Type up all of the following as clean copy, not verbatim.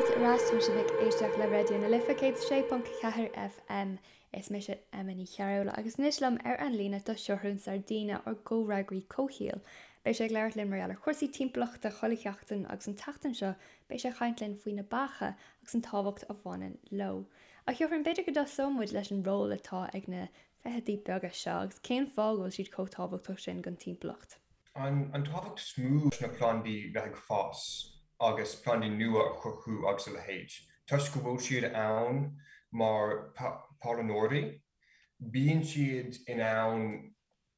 Fáilte ar ais, tá sibh ag éisteacht le Raidió na Life 106.4 FM. Is mise Emma Ní Chearúil agus anois liom ar an líne tá Seathrún Sardina, ár gcomhfhreagraí comhshaoil. Beidh sé ag labhairt linn mar gheall ar chúrsaí timpeallachta chuile sheachtain agus an tseachtain seo beidh sé ag caint linn faoi na beacha agus an tábhacht a bhaineann leo. A Sheathrúin, b'fhéidir go dtosóidh muid leis an ról atá ag na feithidí beaga seo agus cén fáth go bhfuil siad chomh tábhachtach sin don timpeallacht? An tábhacht is mó leis na plandaí bheith ag fás agus plandaí nua a chruthú agus a leithéid, toisc go bhfuil siad ann mar pailneoirí, bíonn siad in ann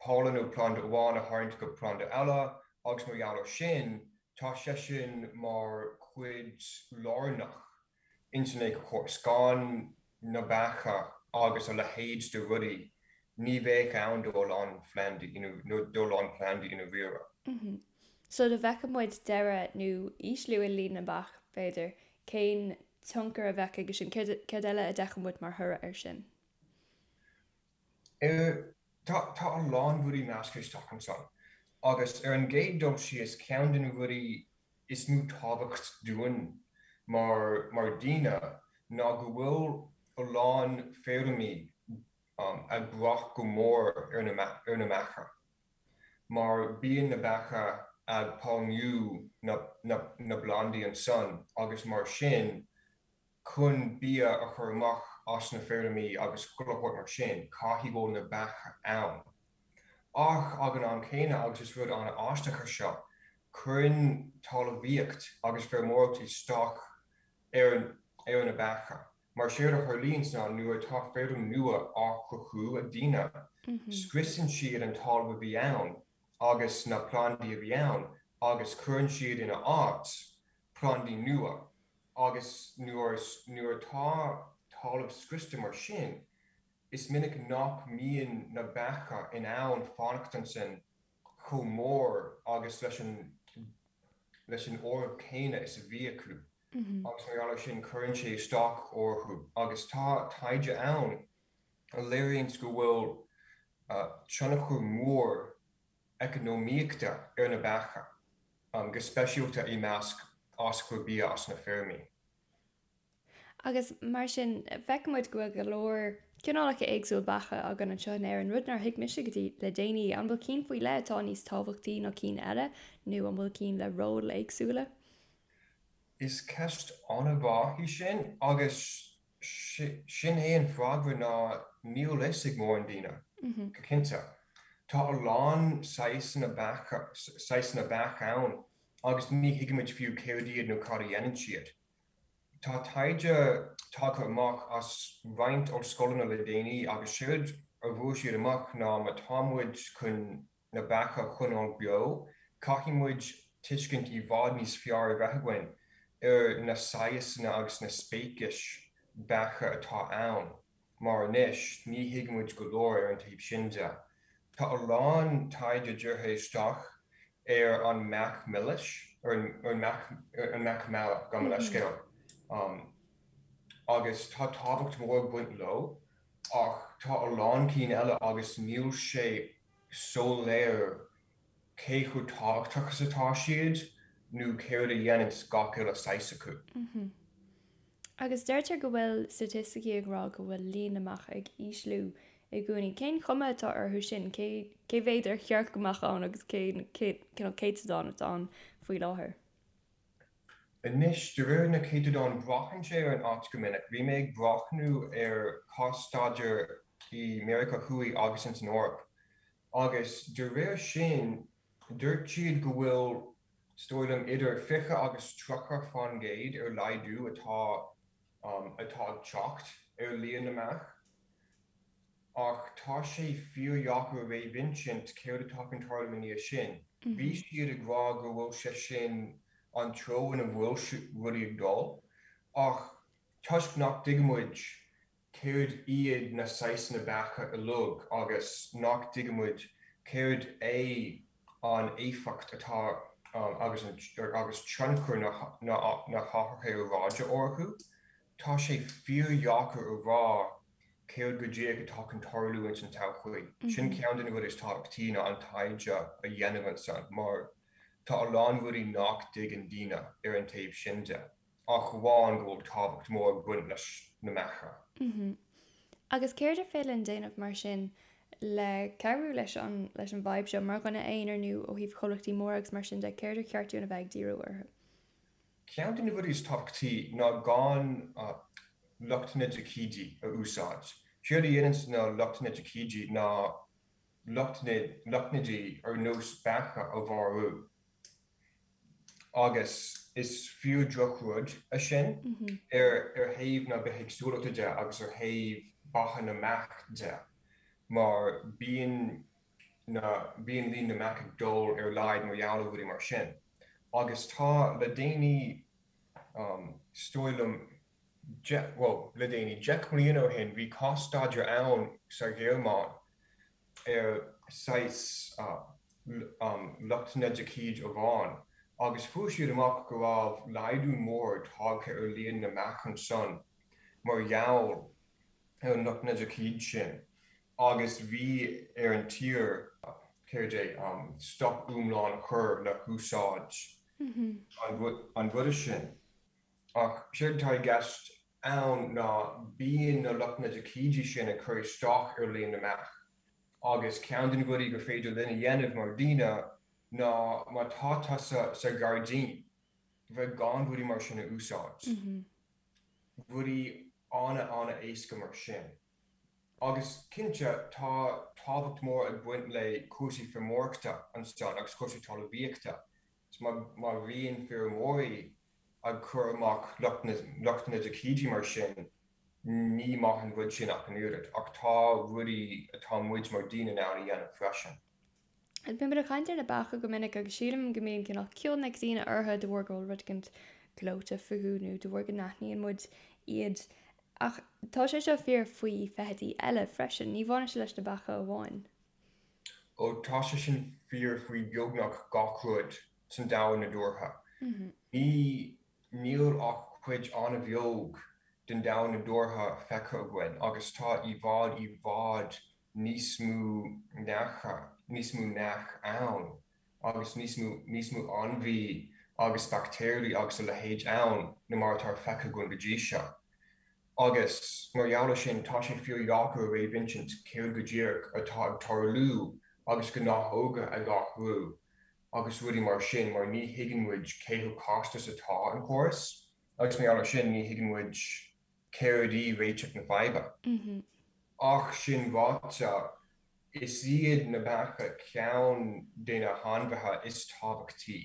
pailin ó phlanda amháin a tharraingt go planda eile agus mar gheall ar sin, tá sé sin mar chuid lárnach ins an éiceachóras. Gan na beacha agus a leithéid de rudaí, ní bheadh ann do a lán phlandaí, nó do a lán plandaí i ndáiríre. So dá bhfeicfeadh muid deireadh nó ísliú i líon na mbeach, b'fhéidir, cén tionchar a bheadh aige sin? Céard eile a d'fheicfeadh muid mar thoradh air sin? Tá a lán rudaí measctha isteach ansan. Agus ar an gcéad dul síos, ceann de na rudaí is mó tábhacht dúinn mar mar daoine ná go bhfuil a lán feirmí ag brath go mór ar na ar na mbeacha mar bíonn na beacha ag pailniú na na na bplandaí ansan agus mar sin chun bia a chur amach as na feirmí agus chuile shórt mar sin, caithfidh go bhfuil na beacha ann. Ach ag an am céanna, agus is rud an-aisteach é seo, cuireann talmhaíocht agus feirmeoireacht isteach ar ar na beacha. Mar séard a tharlaíonns ná nuair atá feirm nua á cruthú ag daoine, scriosann siad an talamh a bhí ann agus na plandaí a bhí ann agus cuireann siad ina áit plandaí nua. Agus nuair nuair atá talamh scriosta mar sin, is minic nach mbíonn na beacha in ann fanacht ansin chomh mór agus leis an leis an áireamh céanna is a bhí acu. Agus mar gheall ar sin cuireann sé isteach orthu. Agus tá taighde ann a léiríonns go bhfuil tionchar mór eacnamaíochta ar na beacha, go speisialta i measc aschur bia as na feirmí. Agus mar sin, feiceann muid go bhfuil go leor cineálacha éagsúil beacha againn anseo in Éirinn, rud nár thuig mise go dtí le déanaí. An bhfuil cinn faoi leith atá níos tábhachtaí ná cinn eile, nó an bhfuil cinn le róil éagsúla? Is ceist an-mhaith í sin, agus Sin é an freagra ná níl fhios ag mórán daoine, go cinnte. Tá a lán saghsanna beacha, saghsanna beach ann agus ní thuigimid fiú céard iad nó cad a dhéanann siad. Tá taighde tagtha amach as roinnt ollscoileanna le déanaí agus séard a bhfuair siad amach ná má tá muid chun na beacha a choinneáil beo, caithfidh muid tuiscint i bhfad níos fearr a bheith againn ar na saghasanna agus na speicis beacha atá ann, mar anois ní thuigimid go leor ar an taobh sin de. Tá a lán taighde dírithe isteach ar an mbeach milis, ar an mbeach meala, gabh mo leithscéal, agus tá tábhacht mhór ag baint leo, ach tá a lán cinn eile agus níl sé soiléir cé chomh tábhachtach is atá siad nó céard a dhéananns gach uile saghas acu. Agus deirtear go bhfuil staitisticí ag rá go bhfuil líon na mbeach ag ísliú i gcónaí. Cén chuma atá orthu sin? Cé cé mhéad ar cheart go mbeadh ann agus cén cineál céatadán atá ann faoi láthair? Anois, de réir na céatadán, braitheann sé ar an áit go minic. Bhí mé ag breathnú ar cás-staidéar i Meiriceá Thuaidh agus ins an Eoraip, agus de réir sin, dúirt siad go bhfuil, is dóigh liom, idir 20 agus 30 fán gcéad ar laghdú atá atá ag teacht ar líon na mbeach. Ach tá sé fíordheacair a réamhinsint céard atá chun tarlú i ndiaidh sin. Bhí siad ag rá go bhfuil sé sin an treo ina bhfuil rudaí ag dul, ach toisc nach dtuigimid céard iad na saghsanna beacha uilig agus nach dtuigimid céard é an éifeacht atá agus agus tionchar na hathruithe aeráide orthu, tá sé fíordheacair a rá céard go díreach atá chun tarlú ins an todhchaí. Sin ceann de na rudaí is tábhachtaí ná an taighde a dhéanamh ansan mar tá a lán rudaí nach dtuigeann daoine ar an taobh sin de. Ach amháin go bhfuil tábhacht mór ag baint leis na mbeacha. Agus céard ar féidir linn déanamh mar sin le cabhrú leis an leis an bhfadhb seo, mar dhuine aonair nó ó thaobh comhlachtaí móra agus mar sin de, céard ar cheart dúinn a bheith ag díriú orthu? Ceann de na rudaí is tábhachtaí ná gan lotnaidicídí a úsáid. Séard a dhéananns na lotnaidicídí ná lotnaidí ar nós beacha a mharú. Agus is fíor-drochrud é sin ar thaobh na bithéagsúlachta de agus ar thaobh beatha na mbeach de mar bíonn na, bíonn líon na mbeach ag dul ar laghad mar gheall ar rudaí mar sin. Agus tá le déanaí, is dóigh liom, bhuel, le déanaí, 10 mbliana ó shin, bhí cás-staidéar ann sa Ghearmáin ar saghas lotnaidicíd amháin agus fuair siad amach go raibh laghdú mór tagtha ar líon na mbeach ansan mar gheall ar an lotnaidicíd sin agus bhí ar an tír, céard é, stop iomlán a chur le húsáid an ruda sin. Ach séard atá i gceist ann ná bíonn na lotnaidicídí sin ag cur isteach ar líon na mbeach agus ceann de na rudaí gur féidir linn a dhéanamh mar dhaoine ná má tá tusa sa ghairdín bheith gan rudaí mar sin a úsáid. Rudaí ana-ana-éasca mar sin. Agus cinnte tá tábhacht mór ag baint le cúrsaí feirmeoireachta ansan agus cúrsaí talmhaíochta. Má bhíonn feirmeoirí ag cur amach lotnaidicídí mar sin, ní maith an rud sin ach an oiread. Ach tá rudaí atá muid mar daoine in ann a dhéanamh freisin. Bíonn muid ag caint ar na beacha go minic agus sílim go mbíonn cineál cion ag daoine orthu de bharr go bhfuil rud éicint gleoite fúthu nó de bharr go n-aithníonn muid iad. Ach tá sé seo fíor faoi feithidí eile freisin, ní bhaineann sé leis na beacha amháin. Ó tá sé sin fíor faoi beagnach gach rud san domhan nadúrtha. Ní, níl ach cuid an-bheag den domhan nadúrtha feicthe againn agus tá i bhfad, i bhfad níos mó neacha, níos mó neach ann agus níos mó, níos mó ainmhí agus baictéirí agus a leithéid ann ná mar atá feicthe againn go dtí seo. Agus mar gheall ar sin, tá sé fíordheacair a réamhinsint céard go díreach atá ag tarlú agus gnáthóga ag athrú agus rudaí mar sin mar ní thuigeann muid cé chomh casta is atá an córas agus mar gheall ar sin ní thuigeann muid céard í réiteach na faidhbe. Ach sin ráite, is iad na beacha ceann de na hainmhithe is tábhachtaí.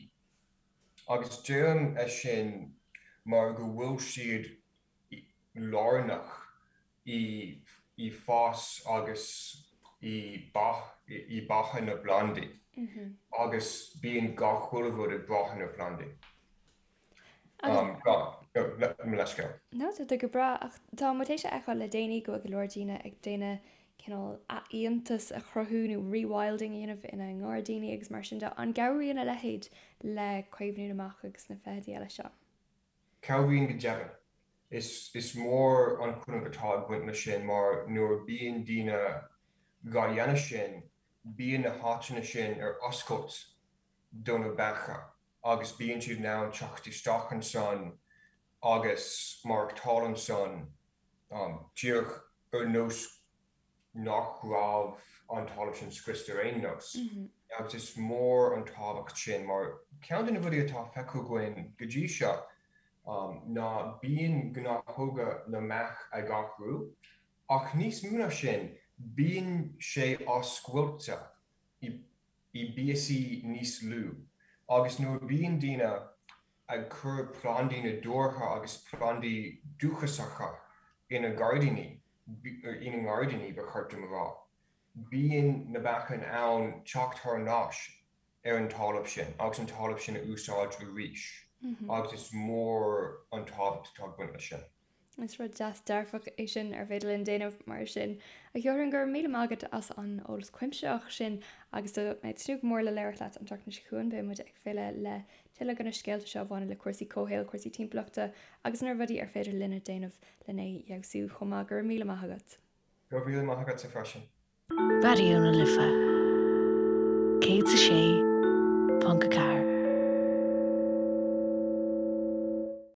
Agus deirim é sin mar go bhfuil siad lárnach i bhfás agus i beatha na bplandaí agus bíonn gach uile rud ag brath ar na plandaí. Mo leithscéal. No, tá tú go breá ach tá muid théis a fheiceáil le déanaí go bhfuil go leor daoine ag déanamh cineál athfhiántas a chruthú nó rewilding a dhéanamh ina ngairdíní agus mar sin de. An gcabhraíonn a leithéid le caomhnú na mbeach agus na feithidí eile seo? Cabhraíonn go deimhin. Is mór an cúnamh atá ag baint leis sin mar nuair a bíonn daoine dhá dhéanamh sin, bíonn na háiteanna sin ar oscailt do na beacha agus bíonn siad in ann teacht isteach ansan agus maireachtáil ansan díreach ar nós nach raibh an talamh sin scriosta ar aon nós. Agus is mór an tábhacht sin mar ceann de na rudaí atá feicthe againn go dtí seo ná bíonn gnáthóga na mbeach ag athrú ach níos mó ná sin bíonn sé á scoilteadh i bpíosaí níos lú agus nuair a bíonn daoine ag cur plandaí nadúrtha agus plandaí dúchasacha ina ngairdíní, ina ngairdíní ba cheart dom a rá. Bíonn na beacha in ann teacht thar n-ais ar an talamh sin agus an talamh sin a úsáid arís agus is mór an tábhacht atá ag baint leis sin. Is rud deas dearfach é sin ar féidir linn déanamh mar sin. A Sheothrain, go raibh míle maith agat as an eolas cuimsitheach sin agus tá mé ag tnúth go mór le labhairt leat an tseachtain seo chugainn. Beidh muid ag filleadh le tuilleadh de na scéalta seo a bhaineann le cúrsaí comhshaoil, cúrsaí timpeallachta agus na rudaí ar féidir linne déanamh lena fheabhsú chomh maith. Go raibh míle maith agat. Go raibh míle maith agatsa freisin. Raidió na Life 106.4.